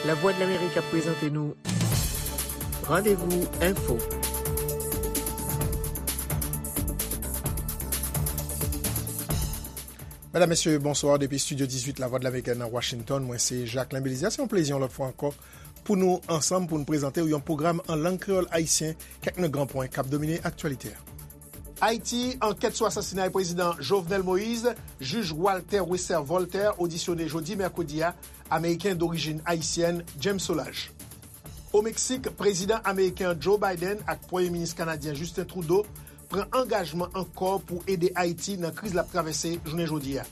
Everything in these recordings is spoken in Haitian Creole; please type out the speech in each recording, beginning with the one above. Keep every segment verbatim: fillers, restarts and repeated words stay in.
Lavwadlamerik ap prezante nou Randevou Enfo. Medam, mesye, bonswa. Depi Estidyo dizuit Lavwadlamerik nan Washington, mwen se Jacquelin Belizaire. Se yon plezi yon lòt fwa ankò pou nou ansanm, pou nou prezante w yon pwogram an lang kreyòl ayisyen, kèk nan gran pwen k ap domine aktyalite a. Ayiti, ankèt sou asasinay prezidan Jovenel Moïse, jij Walter Wesser Voltaire odisyone jodi mèkredi a, Ameriken dorijin ayisyèn James Solages. O Meksik, prezidan ameriken an Joe Biden ak premye minis kanadyen Justin Trudeau pran angajman ankò pou ede Ayiti nan kriz l ap travèse jounen jodi a.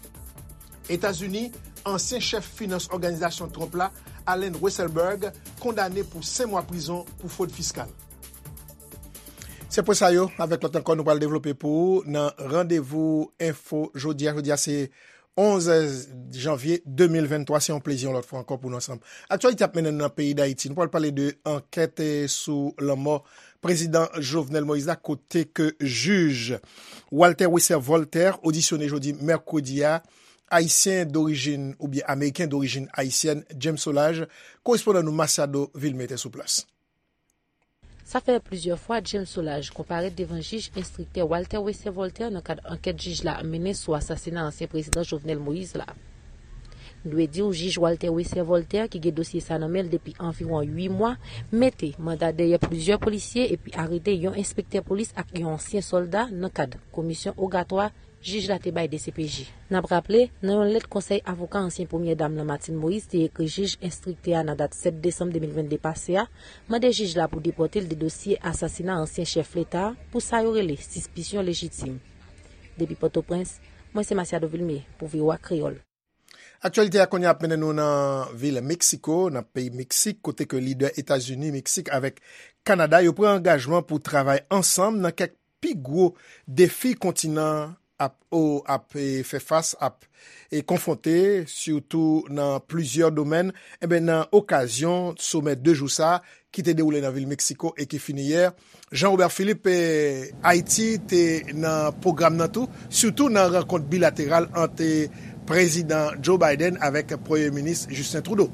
Etazini, ansyen chèf finans òganizasyon Trump la, Allen Weisselberg, kondane pou senk mwa prizon pou fwod fiskal. Se pwen sa yo, avèk lòt ankò, nou pral devlope pou ou nan Randevou Enfo jodi a. Jodi a se onz janvye de mil venntwa. Se yon plezi yon lòt fwa ankò pou nou ansanm. Aktyalite ap mennen nou nan peyi Dayiti. Nou pral pale de ankèt, eh, sou lanmò prezidan Jovenel Moïse la, kote ke jij Walter Wesser Voltaire odisyone jodi mèkredi a, ayisyen dorijin oubyen ameriken dorijin ayisyèn James Solages, korespondan nou Masiado Vilmé te sou plas. Sa fè plizyè fwa James Solages konparèt devan jij enstriktè Walter Wesser Voltaire nan kad ankèt jij la ap mennen sou asasina ansyen prezidan Jovenel Moïse la. Nou dwe di w, jij Walter Wesser Voltaire, ki gen dosye sa nan men l depi anviwon uit mwa, mete manda dèyè plizyè polisye epi arete yon enspektè polis ak yon ansyen sòlda nan kad komisyon ogatwa jij la te bay D C P J. N ap raple, nan yon lèt konsèy avoka ansyen premyè dam lan Martine Moïse te ekri jij enstriktè a nan dat sèt desanm de mil vennde pase a, mande jij la pou depòte l de dosye asasina ansyen chèf leta a pou sa yo rele sispisyon lejitim. Depi Pòtoprens, mwen se Masiado Vilmé pou V O A Kreyòl. Aktyalite a kounye a ap mennen nou nan vil Meksiko, nan peyi Meksik, kote ke lidè Etazini, Meksik avèk Kanada yo pran angajman pou travay ansanm nan kèk pi gwo defi kontinan ap, o, ap, e, fè fas, ap, e, konfwonte, sitou nan plizyè domèn. Enben, nan okazyon somè de jou sa a, ki te dewoule nan vil Meksiko e ki fini yè, Jean Robert Philippe, e, Ayiti te nan pwogram nan tou, sitou nan rankont bilateral ant, e, prezidan Joe Biden avèk premye minis Justin Trudeau.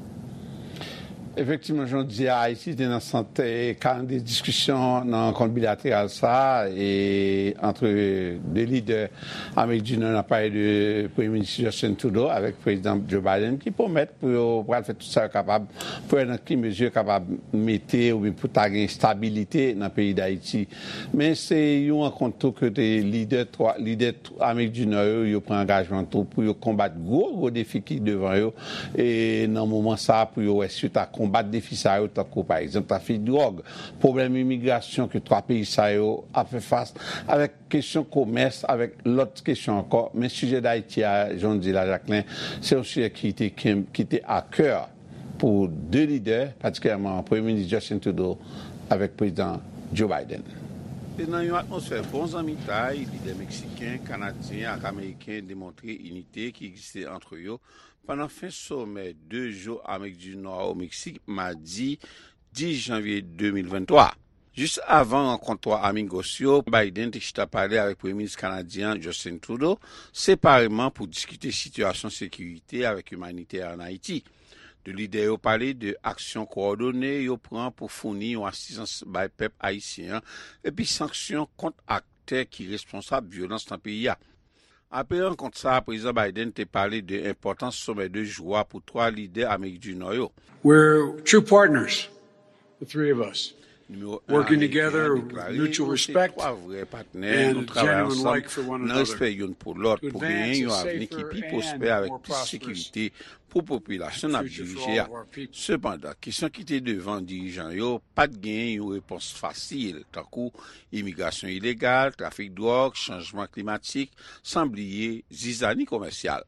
Efektivman, jan w di a, Ayiti te nan sant, e, kalandriye diskisyon nan rankont bilateral sa a, e, ant de lidè Amerik di Nò, n ap pale de premye minis Justin Trudeau avèk prezidan Joe Biden, ki pwomèt pou yo pral fè tout sa yo kapab pou wè nan ki mezi yo kapab mete oubyen pou ta gen estabilite nan peyi Dayiti. Men se yon rankont tou kote lidè twa, lidè Amerik di Nò yo, yo pran angajman tou pou yo konbat gwo, gwo defi ki devan yo, e nan moman sa a, pou yo wè si yo ta konbat defi sa yo, tankou, pa egzanp, trafik dwòg, pwoblèm imigrasyon ke twa peyi sa yo ap fè fas, avèk kesyon komès, avèk lòt kesyon ankò. Men sijè Dayiti a, jan w di la, Jacquelin, se yon sijè ki te, ki te a kè pou de lidè, patikilyèman Premye Minis Justin Trudeau avèk Prezidan Joe Biden. Se nan yon atmosfè bon zanmitay, lidè meksiken, kanadyen ak ameriken demontre inite ki egziste ant yo pandan fen somè de jou Amerik di Nò o Meksik, madi dis janvye de mil venntwa. Jis avan rankont twa amigos yo, Biden te chita pale avèk Premye Minis kanadyen an, Justin Trudeau, separeman pou diskite sitiyasyon sekirite avèk imanitè an Ayiti. De lidè yo pale de aksyon kowòdone yo pran pou founi yon asistans bay pèp ayisyen an, epi sanksyon kont aktè ki responsab vyolans nan peyi a. Apre rankont sa a, Prezidan Biden te pale de enpòtans somè de jou a pou twa lidè Amerik di Nò yo. We're true partners, the three of us. Nimewo en ameriken an deklare, nou se twa vrè patnè, nou travay ansanm nan respè youn pou lòt pou genyen yon avni ki pi pwospè avèk plis sekirite pou popilasyon n ap dirije a. Sepandan, kesyon ki te devan dirijan yo pa t genyen yon repons fasil, tankou imigrasyon ilegal, trafik dwòg, chanjman klimatik, san bliye zizani komèsyal.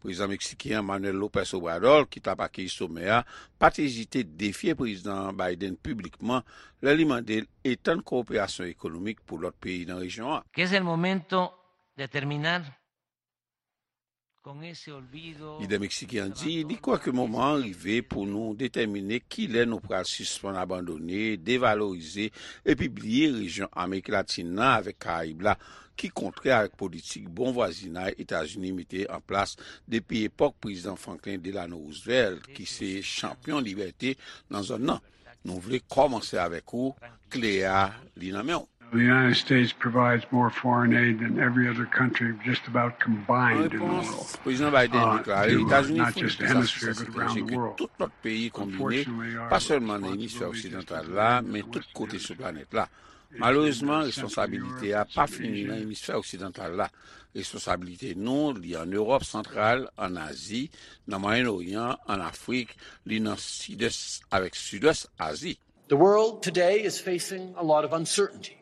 Prezidan meksiken an, Manuel López Obrador, ki t ap akeyi somè a, pa t ezite defye Prezidan Biden piblikman lè li mande l etann kowoperasyon ekonomik pou lòt peyi nan rejyon an. Que es el momento de terminar con ese olvido. Lidè meksiken an di li kwè ke moman an rive pou nou detèmine kilè nou pral sispann abandone, devalorize epi bliye rejyon Amerik Latin nan avèk Karayib la, ki kontrè avèk politik bon vwazinay Etazini mete an plas depi epòk Prezidan Franklin Delano Roosevelt, ki se chanpyon libète nan zòn nan. Nou vle kòmanse avèk ou, kle a, li nan men w. The United States provides more foreign aid than every other country just about combined in the world. An repons, Prezidan Biden deklare Etazini founi plis asistans etranje ke tout lòt peyi konbine, pa sèlman nan emisfè oksidantal la, men tout kote sou planèt la. Malerezman, responsabilite a pa fini nan emisfè oksidantal la. Responsabilite nou, li ann Ewòp santral, ann Azi, nan Mwayen Oryan, ann Afrik, li nan Sidès avèk Sidwès Azi. The world today is facing a lot of uncertainty,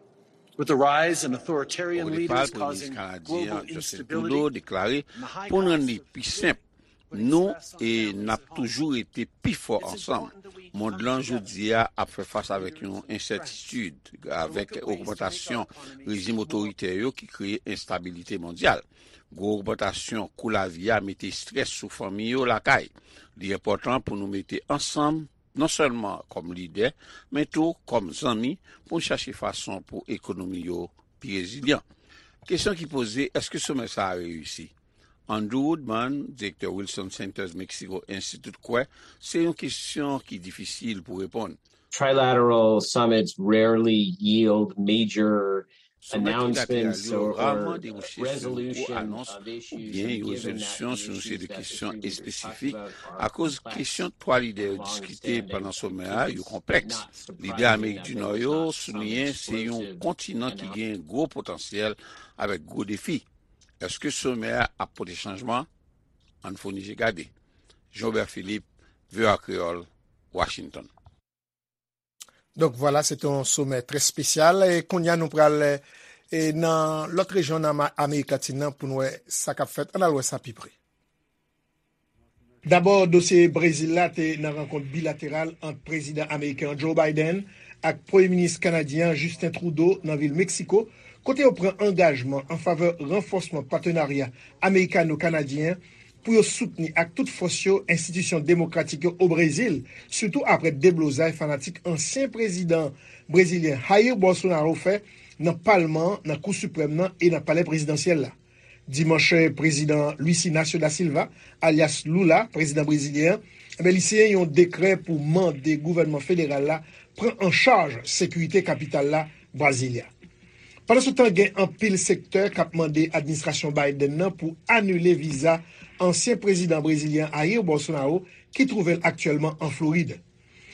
with the rise in authoritarian leaders causing global instability and the high cost of living. Odepa, Premye Minis kanadyen Justin Trudeau deklare, pou n rann li pi senp, nou e n ap toujou rete pi fò ansanm. Mond lan jodi a ap fè fas avèk yon ensètitid, avèk ogmantasyon rejim otoritè yo ki kreye enstabilite mondyal. Gwo ogmantasyon kou lavi a mete estrès sou fanmi yo lakay. Li enpòtan pou nou mete ansanm, non sèlman kòm lidè, men tou kòm zanmi, pou n chache fason pou ekonomi yo pi rezilyan. Kesyon ki poze, èske somè sa a reyisi? Andrew Woodman, direktè Wilson Centers Mexico Institute, kwè se yon kesyon ki difisil pou reponn. Trilateral summits rarely yield major announcements or, or resolution of issues or given that the issues that the two sides are complex. Somè trilateral yo rarman debouche sou gwo anons oubyen yon rezolisyon sou yon seri de kesyon espesifik akoz kesyon twa lidè yo diskite pandan somè a yo konplèks. Lidè Amerik di Nò yo souliyen se yon kontinan ki gen gwo potansyèl avèk gwo defi. Èske somè a ap pote chanjman? Ann founi je gade. Jean Robert Philippe, V O A Kreyòl, Washington. Donk, vwala, se te yon somè trè espesyal. E kounye a, nou pral, e, nan lòt rejyon nan Ma-, Amerik Latin nan pou n wè sa k ap fèt. Ann al wè sa pi pre. Dabò, dosye Brezil la te nan rankont bilateral ant prezidan ameriken an Joe Biden ak premye minis kanadyen an Justin Trudeau nan vil Meksiko, kote yo pran angajman an favè ranfòsman patenarya amerikano-kanadyen an pou yo soutni ak tout fòs yo enstitisyon demokratik yo o Brezil, sitou apre deblozay fanatik ansyen prezidan brezilyen Jair Bolsonaro fè nan palman an, nan Kou Siprèm nan e nan Palè Prezidansyèl la. Dimanch, prezidan Luiz Inácio da Silva, alyas Lula, prezidan brezilyen an, enben, li siyen yon dekrè pou mande gouvènman federal la pran an chaj sekirite kapital la, Brasilia. Pandansetan, gen anpil sektè k ap mande administrasyon Biden nan pou anile viza ansyen prezidan brezilyen Jair Bolsonaro, ki twouve l aktyèlman an Florid.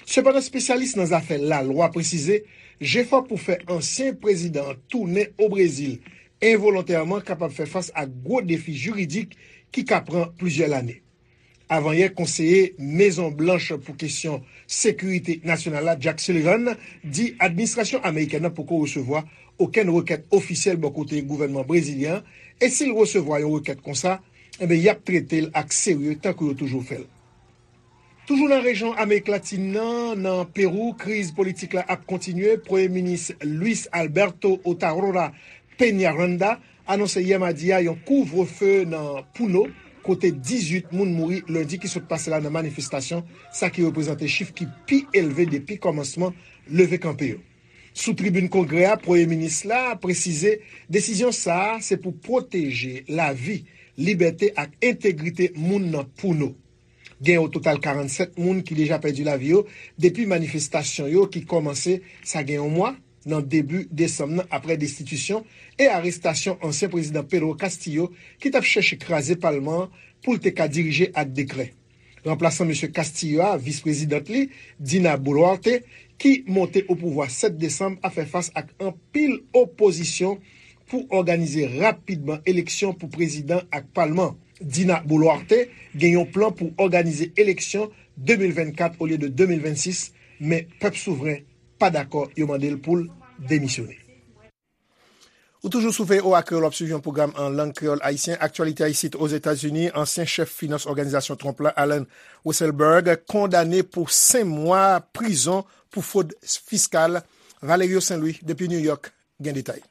Sepandan, espesyalis nan zafè lalwa presize jefò pou fè ansyen prezidan an tounen o Brezil envolontèman kapab fè fas ak gwo defi jiridik ki ka pran plizyè lane. Avanyè, konseye Mezon Blanch pou kesyon sekirite nasyonal la, Jack Sullivan, di administrasyon amerikèn nan poko resevwa okenn rekèt ofisyèl bò kote gouvènman brezilyen an, e si l resevwa yon rekèt konsa, enben, y ap trete l ak serye tankou yo toujou fè l. Toujou nan rejyon Amerik Latin nan, nan Perou, kriz politik la ap kontinye. Premye minis Luis Alberto Otarola Peñaranda anonse yè madi a yon kouvrefe nan Puno, kote dizuit moun mouri lendi ki sot pase la nan manifestasyon, sa ki reprezante chif ki pi elve depi kòmansman leve kanpe yo. Sou tribin Kongrè a, Premye Minis la presize desizyon sa a se pou pwoteje lavi, libète ak entegrite moun nan Puno. Gen o total karannsèt moun ki deja pèdi lavi yo depi manifestasyon yo ki kòmanse sa gen yon mwa, nan debi desanm nan, apre destitisyon e arestasyon ansyen prezidan Pedro Castillo, ki t ap chèche kraze palman an pou l te ka dirije ak dekrè. Ranplasan mesye Castillo a, vis prezidant li, Dina Boluarte, ki monte o pouvwa sèt desanm, ap fè fas ak anpil opozisyon pou òganize rapidman eleksyon pou prezidan ak palman. Dina Boluarte gen yon plan pou òganize eleksyon de mil vennkat olye de de mil vennsis, men pèp souvren pa dakò, yo mande l pou l demisyone. Ou toujou sou V O A Kreyòl, w ap swiv yon pwogram an lang kreyòl ayisyen. Aktyalite isit Ozetazini, ansyen chèf finans òganizasyon Trump la, Allen Weisselberg, kondane pou senk mwa prizon pou fwod fiskal. Valerio Saint Louis, depi New York, gen detay.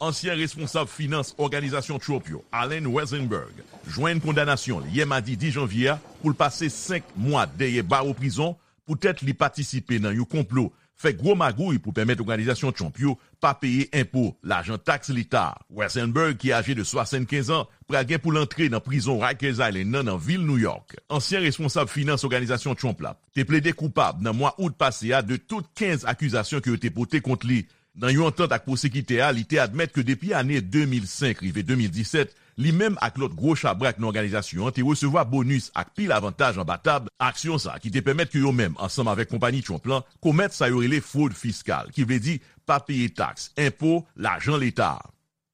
Ansyen responsab finans òganizasyon Trump yo, Allen Weisselberg, jwenn kondanasyon l yè madi dis janvye a pou l pase senk mwa dèyè bawo prizon poutèt li patisipe nan yon konplo fè gwo magouy pou pèmèt òganizasyon Trump yo pa peye enpo, lajan taks leta. Weisselberg, ki aje de swasannkenz an, pral gen pou l antre nan prizon Rikers Island nan, nan vil New York. Ansyen responsab finans òganizasyon Trump la te plede koupab nan mwa out pase a de tout kenz akizasyon ke yo te pote kont li. Nan yon antant ak pwosekitè a, li te admèt ke depi ane de mil senk rive de mil disèt, li menm ak lòt gwo chabrak nan òganizasyon an te resevwa bonis ak pil avantaj anba tab, aksyon sa ki te pèmèt ke yo menm, ansanm avèk konpayi Trump lan, komèt sa yo rele fwod fiskal, ki vle di pa peye taks, enpo, lajan leta a.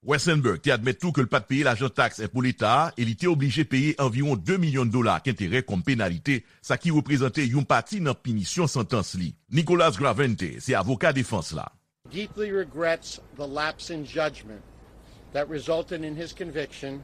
Weisselberg te admèt tou ke l pa t peye lajan taks enpo leta a e li te oblije peye anviwon de milyon dola ak enterè kòm penalite, sa ki reprezante yon pati nan pinisyon santans li. Nicholas Gravente se avoka defans la. Deeply regrets the lapse in judgment that resulted in his conviction.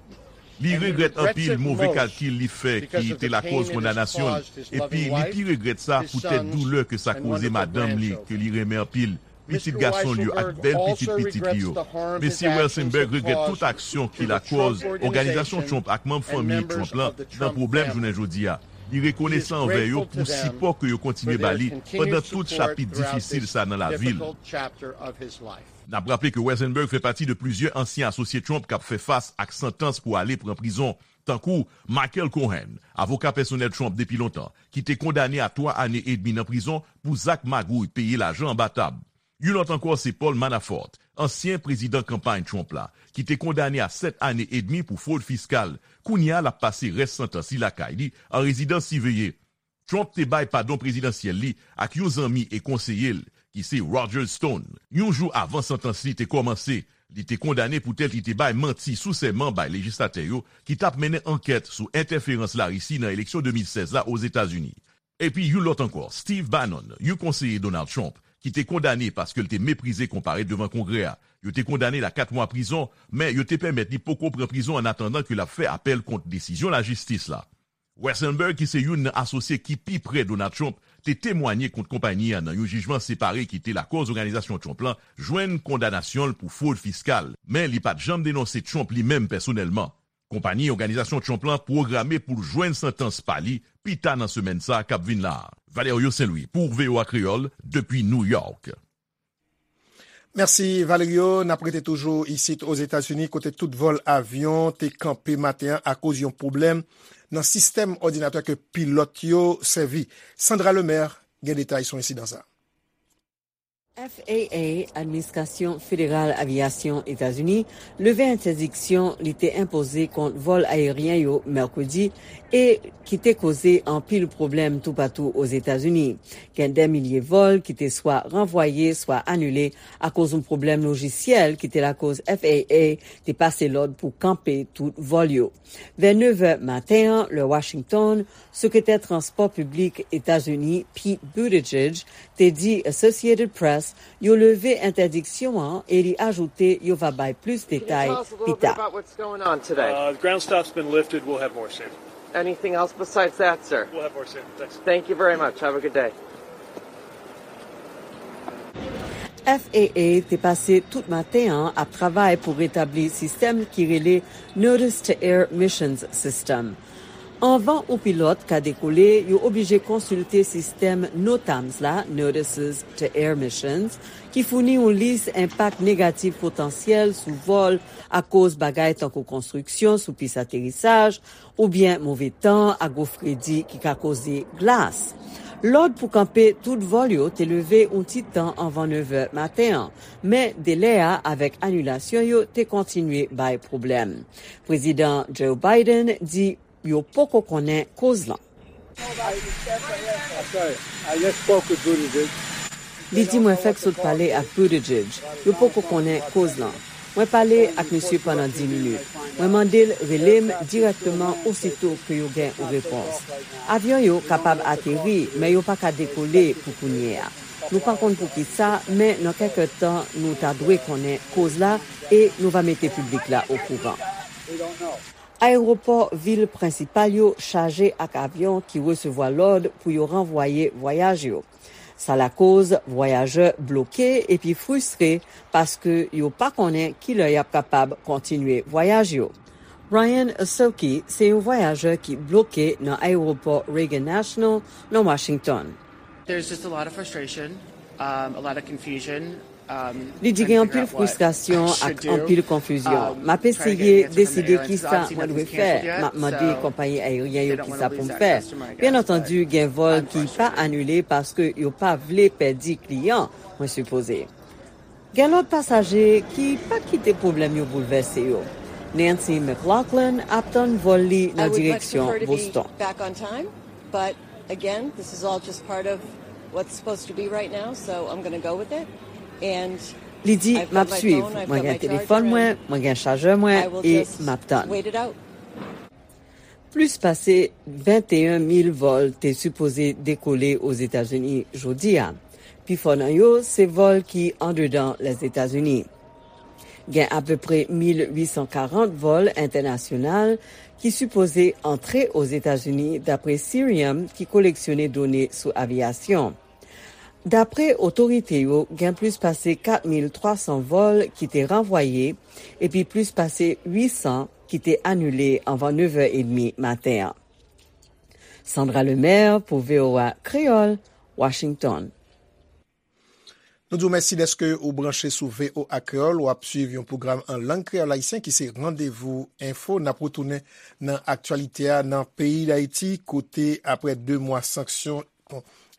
Li regrèt anpil move kalkil li fè ki te lakòz kondanasyon l, epi li pi regrèt sa poutèt doulè ke sa koze madanm li ke li renmen anpil, pitit gason l yo ak bèl pitit pitit li yo. Mesye Weisselberg regrèt tout aksyon ki lakòz òganizasyon Trump ak manm fanmi Trump lan nan pwoblèm jounen jodi a. Li rekonesan anvè yo pou sipò ke yo kontinye ba li pandan tout chapit difisil sa nan lavi l. N ap raple ke Weisselberg fè pati de plizyè ansyen asosye Trump k ap fè fas ak santans pou ale pran prizon, tankou Michael Cohen, avoka pèsonèl Trump depi lontan, ki te kondane a twa ane edmi nan prizon pou zak magouy peye lajan anba tab. Yon lòt ankò se Paul Manafort, ansyen prezidan kanpay Trump la, ki te kondane a sèt ane edmi pou fwod fiskal. Kounye a, l ap pase rès santans li lakay li, an rezidans siveye. Trump te bay padon prezidansyèl li ak yon zanmi e konseye l, ki se Roger Stone, yon jou avan santans li te kòmanse. Li te kondane poutèt li te bay manti sou sèman bay lejislatè yo ki t ap mennen ankèt sou entèferans Larisi nan eleksyon de mil sèz la Ozetazini. Epi yon lòt ankò, Steve Bannon, yon konseye Donald Trump, ki te kondane paske l te meprize konparèt devan Kongrè a. Yo te kondane l a kat mwa prizon, men yo te pèmèt li poko pran prizon annatandan ke l ap fè apèl kont desizyon lajistis la. Weisselberg, ki se youn nan asosye ki pi prè Donald Trump, te temwanye kont konpayi a nan yon jijman separe ki te lakòz òganizasyon Trump lan jwenn kondanasyon l pou fwod fiskal, men li pa t janm denonse Trump li menm pèsonèlman. Konpayi òganizasyon Trump lan pwograme pou l jwenn santans pa li pi ta nan semèn sa a k ap vin la a. Valerio Saint Louis pou V O A Kreyòl, depi New York. Mèsi, Valerio. N ap rete toujou isit Ozetazini, kote tout vòl avyon te kanpe maten an akoz yon pwoblèm nan sistèm òdinatè ke pilòt yo sèvi. Sandra Lemaire gen detay sou ensidan sa a. F A A, Administrasyon Federal Aviyasyon Etazini, leve entèdiksyon li te enpoze kont vòl ayeryen yo mèkredi e ki te koze anpil pwoblèm toupatou Ozetazini. Gen dè milye vòl ki te swa ranvwaye, swa anile akoz yon pwoblèm lojisyèl ki te lakòz F A A te pase lòd pou kanpe tout vòl yo. Vè nevè maten an, lè Washington, Sekretè Transpò Piblik Etazini Pete Buttigieg te di Associated Press yo leve entèdiksyon an e li ajoute yo va bay plis detay pi ta. Uh, the ground stop's been lifted. We'll have more soon. Anything else besides that, sir? We'll have more soon. Thanks. Thank you very much. Have a good day. F A A te pase tout maten an ap travay pou retabli sistèm ki rele Notice to Air Missions System. Anvan yon pilòt ka dekole, yo oblije konsilte sistèm NOTAMs la, Notices to Air Missions, ki founi yon lis enpak negatif potansyèl sou vòl akoz bagay tankou konstriksyon sou pis aterisaj, oubyen move tan ak gwo fredi ki ka koze glas. Lòd pou kanpe tout vòl yo te leve yon ti tan anvan nevè maten an, men delè a avèk anilasyon yo te kontinye bay pwoblèm. Prezidan Joe Biden di yo poko konnen koz lan. Li di mwen fèk sot pale ak Buttigieg. Yo poko konnen koz lan. Mwen pale ak misye pandan dis minit. Mwen mande l rele m dirèkteman osito ke yo gen yon repons. Avyon yo kapab ateri, men yo pa ka dekole pou kounye a. Nou pa konn poukisa, men nan kèk tan, nou ta dwe konnen koz la e nou va mete piblik la okouran. Ayewopò vil prensipal yo chaje ak avyon ki resevwa lòd pou yo ranvwaye vwayaj yo. Sa lakoz vwayajè bloke epi fristre paske yo pa konnen kilè y ap kapab kontinye vwayaj yo. Ryan Asoki se yon vwayajè ki bloke nan ayewopò Reagan National nan Washington. There's just a lot of frustration. Li di gen anpil fristrasyon ak anpil konfizyon. M ap eseye deside kisa mwen dwe fè. M ap mande konpayi ayeryen yo kisa pou m fè. Byen antandi, gen vòl ki pa anile paske yo pa vle pèdi kliyan, mwen sipoze. Gen lòt pasaje ki pa kite pwoblèm yo boulvèse yo. Nancy McLaughlin ap tann vòl li nan direksyon Boston. But again, this is all just part of what's supposed to be right now, so I'm going to go with it. And Li di, "M ap swiv. Mwen gen telefòn mwen, mwen gen chajè mwen, e m ap tann." Plis pase venteyen mil vòl te sipoze dekole Ozetazini jodi a. Pifò nan yo se vòl ki andedan Lèzetazini. Gen apeprè mil uit san karant vòl entènasyonal ki sipoze antre Ozetazini, dapre Cirium, ki koleksyone done sou aviyasyon. Dapre otorite yo, gen plis pase kat mil twa san vòl ki te ranvwaye, epi plis pase uit san ki te anile anvan nevè edmi maten an. Sandra Lemaire pou V O A Kreyòl, Washington. Nou di w mèsi dèske ou branche sou V O A Kreyòl. W ap swiv yon pwogram an lang kreyòl ayisyen ki se Randevou Enfo. N ap retounen nan aktyalite a nan peyi Dayiti, kote apre de mwa sanksyon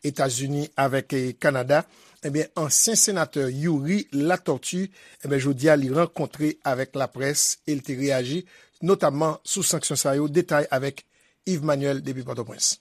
Etazini avèk Kanada, ebyen, ansyen senatè Youri Latortue, ebyen, jodi a, li rankontre avèk laprès e l te reyaji, notamman sou sanksyon sa yo. Detay avèk Yves Manuel depi Pòtoprens.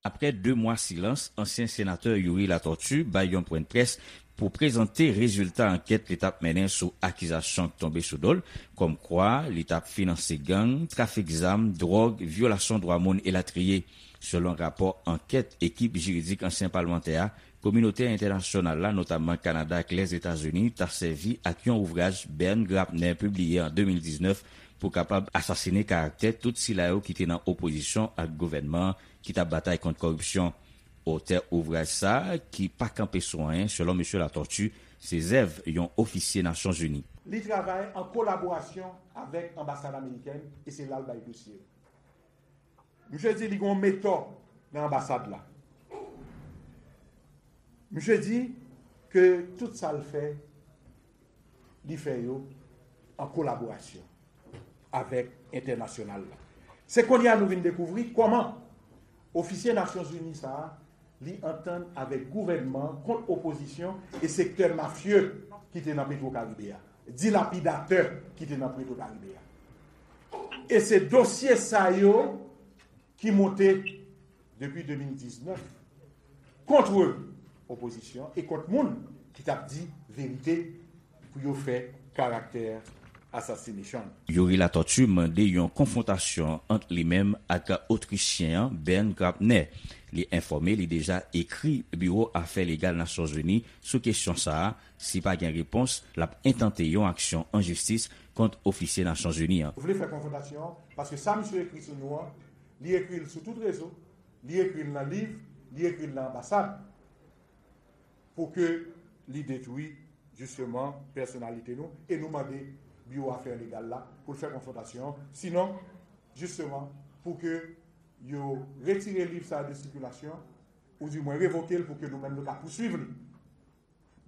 Apre de mwa silans, ansyen senatè Youri Latortue bay yon pwennprès pou prezante rezilta ankèt li t ap mennen sou akizasyon k tonbe sou do l, kòmkwa li t ap finanse gang, trafik zam, dwòg, vyolasyon dwa moun elatriye. Selon rapò ankèt ekip jiridik ansyen palmantè a, kominote entènasyonal la, notamman Kanada ak Lèzetazini, ta sèvi ak yon ouvraj Bern Grabner pibliye an de mil diznèf pou kapab asasinen karaktè tout sila yo ki te nan opozisyon ak gouvènman an ki t ap batay kont kòripsyon. Otè ouvraj sa a, ki pa kanpe sou anyen, selon mesye Latortue, se zèv yon ofisye Nasyonzini. Li travay an kolaborasyon avèk anbasad amerikèn e se la l bay dosye yo. Misye di li gen yon metò nan anbasad la. Misye di ke tout sa l fè, li fè yo an kolaborasyon avèk entènasyonal la. Se kounye a nou vin dekouvri kòman ofisye Nasyonzini sa a, li antann avèk gouvènman kont opozisyon e sektè mafye ki te nan Petwokaribe a, dilapidatè ki te nan Petwokaribe a. E se dosye sa yo ki monte depi de mil diznèf kont opozisyon e kont moun ki t ap di verite pou yo fè karaktè assassination. Youri Latortue mande yon konfwontasyon ant li menm ak Otrichyen an Bern Grabner. Li enfòme li deja ekri Biwo Afè Legal Nasyonzini sou kesyon sa a. Si pa gen repons, l ap entante yon aksyon an jistis kont ofisye Nasyonzini an. Vle fè konfwontasyon an, paske sa misye ekri sou nou an, li ekri l sou tout rezo, li ekri l nan liv, li ekri l nan anbasad, pou ke li detwi, jisteman, pèsonalite nou, e nou mande Biwo Afè Legal la pou l fè konfwontasyon an. Sinon, jisteman, pou ke yo retire liv sa a de sikilasyon, oudimwen revoke l pou ke nou menm nou ka pouswiv li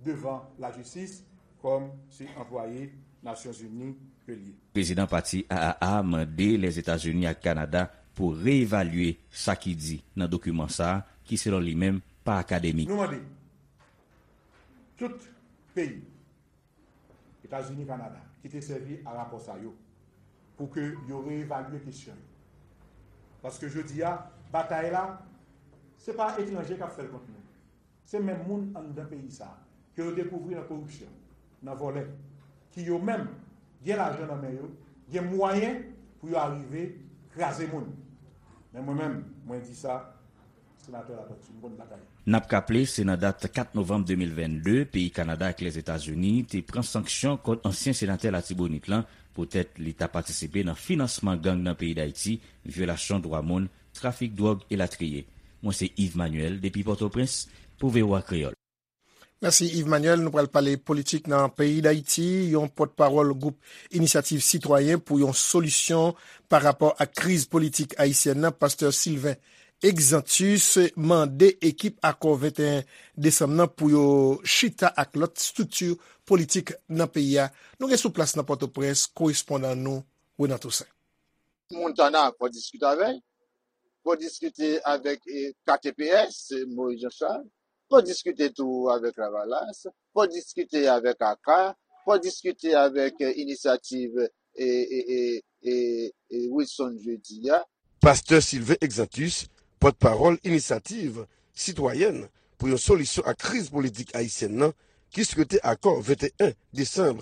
devan lajistis kòm se anplwaye Nasyonzini ke l ye. Prezidan pati A A A mande Lèzetazini ak Kanada pou reevalye sa ki di nan dokiman sa a, ki selon li menm pa akademik. Nou mande tout peyi Etazini, Kanada, ki te sèvi a rapò sa yo pou ke yo reevalye kesyon yo. Paske jodi a, batay la, se pa etranje k ap fè l kont nou. Se menm moun anndan peyi sa a, ke yo dekouvri nan koripsyon, nan vòlè, ki yo menm gen lajan nan men yo, gen mwayen pou yo arive kraze moun. Men mwen menm, mwen di sa, Senatè Latortue, m konn batay. N ap raple, se nan dat kat novanm de mil vennde, peyi Kanada ak Lèzetazini te pran sanksyon kont ansyen senatè Latibonit lan poutèt li ta patisipe nan finansman gang nan peyi Dayiti, vyolasyon dwa moun, trafik dwòg elatriye. Mwen se Yves Manuel depi Pòtoprens pou V O A Kreyòl. Mèsi Yves Manuel. Nou pral pale politik nan peyi Dayiti. Yon pòtpawòl gwoup Inisyativ Sitwayen pou yon solisyon pa rapò ak kriz politik ayisyèn nan, pastè Sylvain Exantus mande ekip Akò venteyen desanm nan pou yo chita ak lòt estrikti politik nan peyi a. Nou gen sou plas nan Pòtoprens korespondan nou, Renan Toussaint. Montana, fò diskite avè l. Fò diskite avèk, eh, K T P S, Moïse Jean Charles. Fò diskite tou avèk Lavalas. Fò diskite avèk aka. Fò diskite avèk, eh, inisyativ, eh, eh, eh, eh, eh, Wilson Jeudi a. Pastè Sylvain Exantus, pòtpawòl Inisyativ Sitwayèn pou yon solisyon ak kriz politik ayisyèn nan, ki swete akò venteyen desanm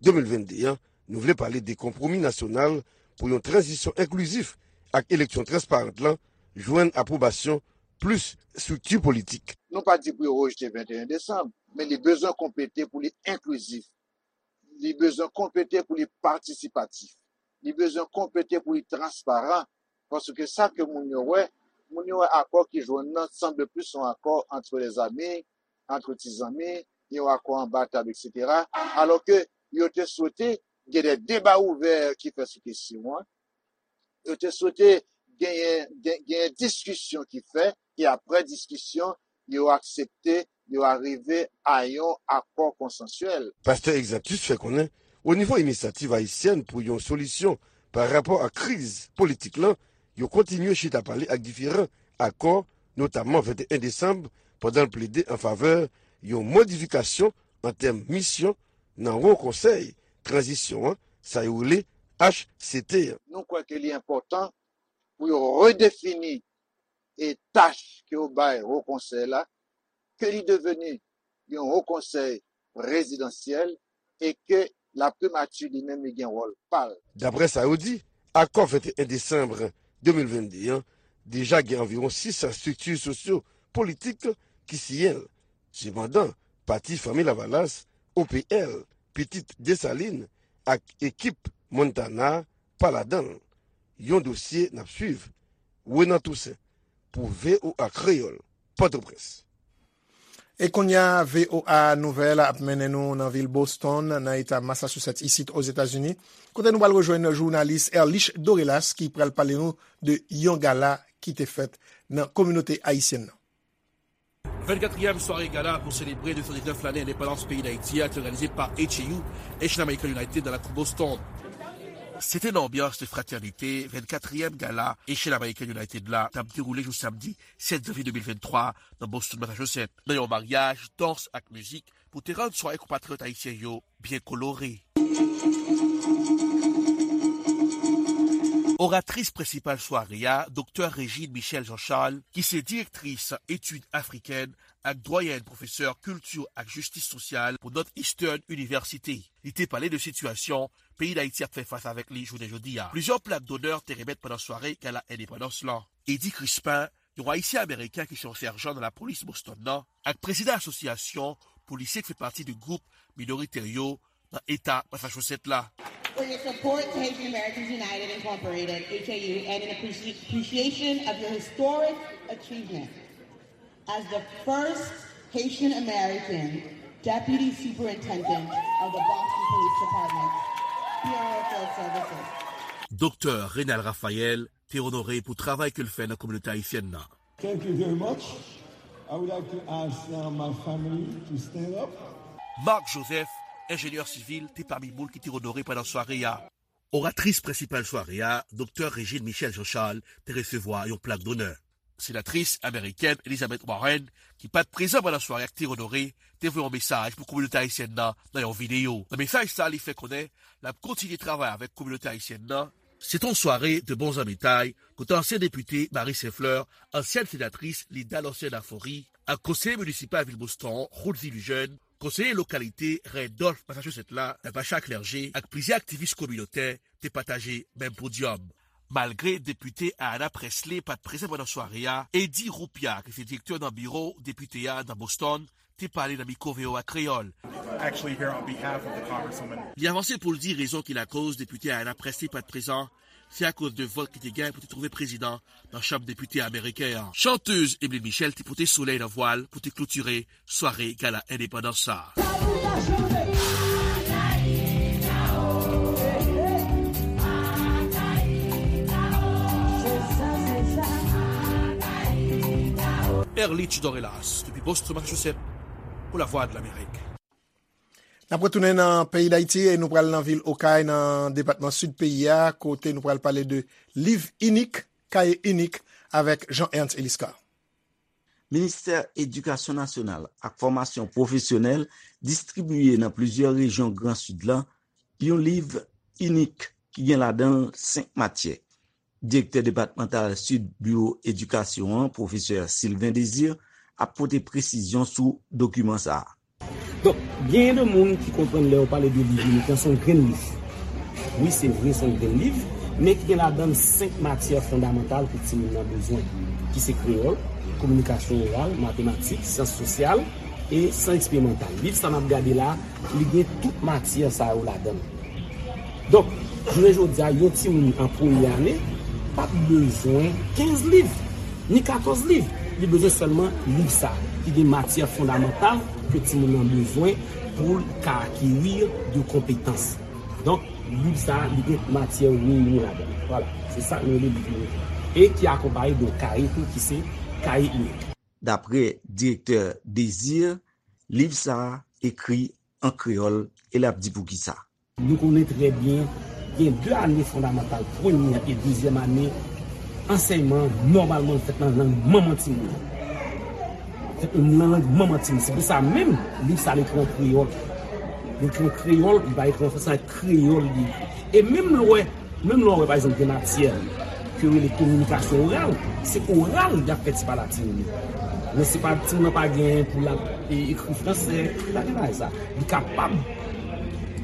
de mil vennde an, nou vle pale de konpwomi nasyonal pou yon tranzisyon enklizif ak eleksyon transparant lan, jwenn apwobasyon plis estrikti politik. Nou pa di pou yo rejte venteyen desanm, men li bezwen konplete pou li enklizif. Li bezwen konplete pou li patisipatif. Li bezwen konplete pou li transparan. Paske sa ke moun yo wè, moun yo wè akò ki jwenn nan sanble plis yon akò antre lèzanmi, antre ti zanmi, yon akò anba tab, et cetera. Alò ke yo te swete gen de deba ouvè ki fè sou kesyon an. Yo te swete genyen, gen- genyen diskisyon ki fè, e apre diskisyon, yo aksepte, yo arive a yon akò konsansyèl. Pastè Exantus fè konnen, o nivo Inisyativ Ayisyèn pou yon solisyon pa rapò ak kriz politik lan, yo kontinye chita pale ak diferan akò, notamman venteyen desanm, pandan l plede an favè yon modifikasyon an tèm misyon nan Wo Konsèy Tranzisyon an, sa yo rele H C T an. Nou kwè ke li enpòtan pou yo redefini e tach ke yo bay Wo Konsèy la, ke li deveni yon Wo Konsèy prezidansyèl e ke Laprimati li menm li gen wòl pa l. Daprè sa yo di, akò venteyen desanm de mil vennde an deja gen anviwon sis san estrikti sosyo politik ki siyen l. Sepandan, pati Fanmi Lavalas, O P L, Pitit Desalin ak ekip Montana pa ladan l. Yon dosye n ap swiv. Renan Toussaint pou V O A Kreyòl, Pòtoprens. E kounye a, V O A Nouvèl ap mennen nou nan vil Boston, nan eta Massachusetts, isit Ozetazini, kote nou pral rejwenn jounalis Erlich Dorelas ki pral pale nou de yon gala ki te fèt nan kominote ayisyèn nan. Vennkatriyèm sware gala pou selebre de san diznèf lane endepandans peyi Dayiti a te òganize pa H A U, Haitian American United, nan lakou Boston. Se te nan anbyans de fratènite vennkatriyèm gala Haitian American United la t ap dewoule jou samdi sèt janvye de mil venntwa nan Boston, Massachusetts, nan yon maryaj dans ak mizik pou te rann sware konpatriyòt ayisyen yo byen kolore. Oratris prensipal sware a, Doktè Régine Michel Jean Charles, ki se direktris etid afrikèn ak dwayèn pwofesè kilti ak jistis sosyal pou Northeastern University. Li te pale de sitiyasyon peyi Dayiti ap fè fas avèk li jounen jodi a. Plizyè plak donè te remèt pandan sware gala endepandans lan. Eddy Crispin, yon Ayisyen Ameriken ki se yon sèjan nan lapolis Boston nan, ak prezidan Asosyasyon pou lisye ki fè pati de gwoup minoritè yo nan eta Massachusetts la. For your support to Haitian Americans United Incorporated, H A U, and in appreci- appreciation of your historic achievement as the first Haitian American Deputy Superintendent of the Boston Police Department, Bureau of Field Services. Doktè Reynald Raphaël te onore pou travay ke l fè nan kominote ayisyèn nan. Thank you very much. I would like to ask now my family to stand up. Marc Joseph, enjenyè sivil, te pami moun ki te onore pandan sware a. Oratris prensipal sware a, Doktè Régine Michel Jean Charles, te resevwa yon plak donè. Senatris amerikèn Elizabeth Warren, ki pa t prezan pandan sware a, ki te onore, te voye yon mesaj pou kominote ayisyèn nan nan yon videyo. Nan mesaj sa, li fè konnen l ap kontinye travay avèk kominote ayisyèn nan. Se te yon sware de bon zanmitay kote ansyen depite Marie Saint-Fleur, ansyèn senatris Linda Lorcène Affoury, ak konseye minisipal vil Boston, Rudy Lejeune, konseye lokalite Randolph, Massachusetts la, Natacha Clergé, ak plizyè aktivis kominotè te pataje menm podyòm. Malgre depite Ayanna Pressley pa t prezan pandan sware a, Eddy Roupia, ki se direktè nan biwo depite a nan Boston, te pale nan mikwo V O A Kreyòl. Actually here on behalf of the Congresswoman. Li avanse pou l di rezon ki lakoz depite Ayanna Pressley pa t prezan, se akoz de vòt ki te gen pou te twouve prezidan nan Chanm Depite ameriken an. Chantèz Emeline Michel te pote solèy nan vwa l pou te klotire sware gala endepandans sa a. Erlich Dorelaas, depi Boston, Massachusetts, pou Lavwadlamerik. N ap retounen nan peyi Dayiti e nou pral nan vil Okay, nan depatman Sid peyi a, kote nou pral pale de liv inik, kaye inik, avèk Jean Ernst Eliscar. Ministè Edikasyon Nasyonal ak Fòmasyon Pwofesyonèl distribiye nan plizyè rejyon Gran Sid la yon liv inik ki gen ladan l senk matyè. Direktè depatmantal Sid Biwo Edikasyon an, pwofesè Sylvain Désir, ap pote presizyon sou dokiman sa a. Donk, genyen de moun ki konprann lè yo pale de liv inik lan, se yon grenn liv. Wi, se vre, se yon grenn liv, men ki gen ladan l senk matyè fondamantal ke timoun nan bezwen, ki se kreyòl, kominikasyon oral, matematik, syans sosyal e syans eksperimantal. Liv sa n ap gade la, li gen tout matyè sa yo ladan l. Donk, jounen jodi a, yon timoun an premye ane p ap bezwen kenz liv, ni katòz liv. Li bezwen sèlman liv sa, ki gen matyè fondamantal ke timoun nan bezwen pou l ka akeri de konpetans. Donk, liv sa, li gen matyè reyini ladan l. Vwala, se sa nou rele liv inik. E ki akonpaye de yon kaye tou, ki se kaye inik. Daprè direktè Désir, liv sa a ekri an kreyòl e l ap di poukisa. Nou konnen trè byen, gen de ane fondamantal, premyè e dezyèm ane, ansèyman an nòmalman fèt nan lang manman timoun nan. Fèt nan lang manman timoun. Se pou sa menm, liv sa, l ekri an kreyòl. L ekri an kreyòl, li pa ekri an fransè, se kreyòl li ekri. E menm lè w wè, menm lè w wè, pa egzanp, gen matyè ke yo rele kominikasyon oral, se oral y ap fè ti pale a timoun yo. Men se pa timoun nan pa gen pou l ap, e, ekri fransè, pa gen bagay sa. Li kapab,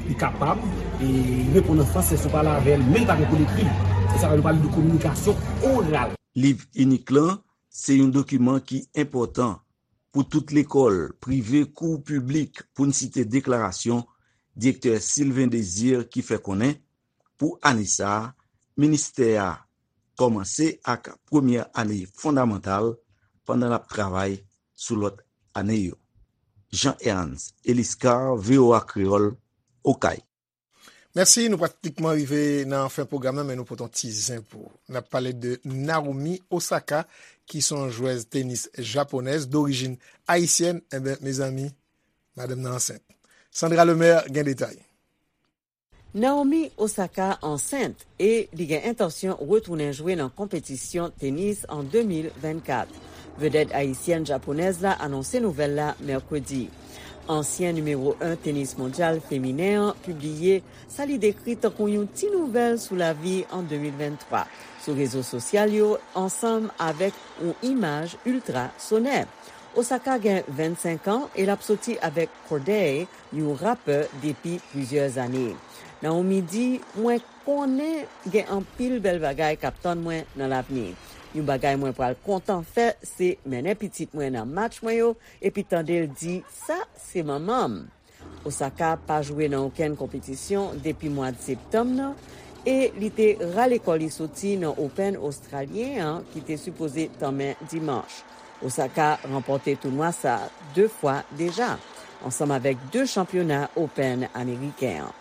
li kapab, e, reponn an fransè si w pale avè l, men li pa gen pou l ekri. Se sa nou pale de kominikasyon oral. Liv inik lan se yon dokiman ki enpòtan pou tout lekòl, prive kou piblik, pou n site deklarasyon direktè Sylvain Désir ki fè konnen, pou ane sa a, ministè a kòmanse ak premyè ane fondamantal pandan l ap travay sou lòt ane yo. Jean Ernst Eliscar, V O A Kreyòl, Okay. Mèsi, nou pratikman rive nan fen pwogram nan, men nou pote yon ti zen pou ou. N ap pale de Naomi Osaka, ki se yon jwèz tenis japonèz dorijin ayisyèn. Enben, mezanmi, madanm nan ansent. Sandra Lemaire gen detay. Naomi Osaka ansent e li gen entansyon retounen jwe nan konpetisyon tenis an de mil vennkat. Vedèt ayisyèn japonèz la anonse nouvèl la mèkredi. Ansyen nimewo en tenis mondyal feminen an pibliye sa li dekri tankou yon ti nouvèl sou lavi an de mil venntwa sou rezo sosyal yo, ansanm avèk yon imaj iltra sonè. Osaka gen vennsenk an e l ap soti avèk Cordae, yon rapè, depi plizyè ane. Naomi di, "Mwen konnen gen anpil bèl bagay k ap tann mwen nan lavni. Yon bagay mwen pral kontan fè, se mennen pitit mwen nan match mwen yo epi tande l di, 'Sa se manman m.'" Osaka pa jwe nan okenn konpetisyon depi mwad septanm nan e li te rale kò li soti nan Open Ostralyen an ki te sipoze tanmen dimanch. Osaka ranpòte tounwa sa a de fwa deja, ansanm avèk de chanpyona Open ameriken an.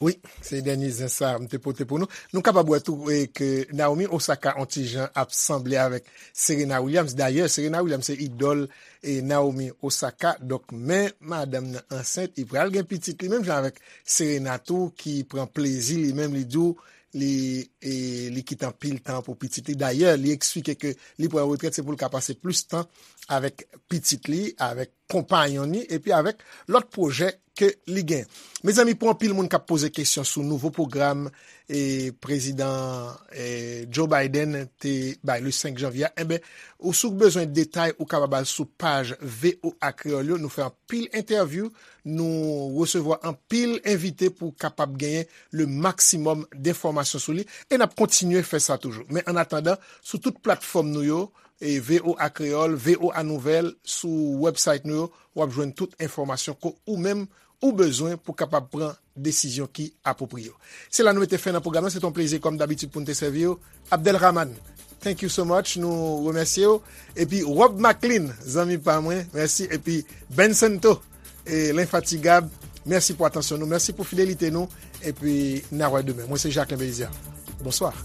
Wi, se dènye zen sa a m te pote pou nou. Nou kapab wè tou, e, ke Naomi Osaka on ti jan ap sanble avèk Serena Williams. Dayè, Serena Williams se idòl, e, Naomi Osaka. Donk, men madanm nan ansent, li pral gen pitit li menm jan avèk Serena tou, ki pran plezi li menm, li di w, li, e, li kite anpil tan pou pitit li. Dayè, li eksplike ke li pran retrèt, se pou l ka pase plis tan avèk pitit li, avèk konpayon li, epi avèk lòt pwojè ke li gen. Mezanmi, pou anpil moun k ap poze kesyon sou nouvo pwogram, e, prezidan, e, Joe Biden te bay le senk janvye a, enben, ou si w bezwen detay, ou kapab al sou paj V O A Kreyòl yo. Nou fè anpil entèvyou, nou resevwa anpil envite pou kapab genyen le maksimòm denfòmasyon sou li, e n ap kontinye fè sa toujou. Men annatandan, sou tout platfòm nou yo, e V O A Kreyòl, V O A Nouvèl, sou website nou yo, w ap jwenn tout enfòmasyon ke ou menm ou bezwen pou kapab pran desizyon ki apwopriye w. Se la nou mete fen nan pwogram nan. Se te yon plezi, kòm dabitid, pou n te sèvi w. Abdelrahman, thank you so much. Nou remèsye w. Epi Rob Maclean, zanmi pa mwen, mèsi. Epi Ben Santo, e lenfatigab, mèsi pou atansyon nou. Mèsi pou fidelite nou. Epi n a wè demen. Mwen se Jacquelin Belizaire. Bonswa.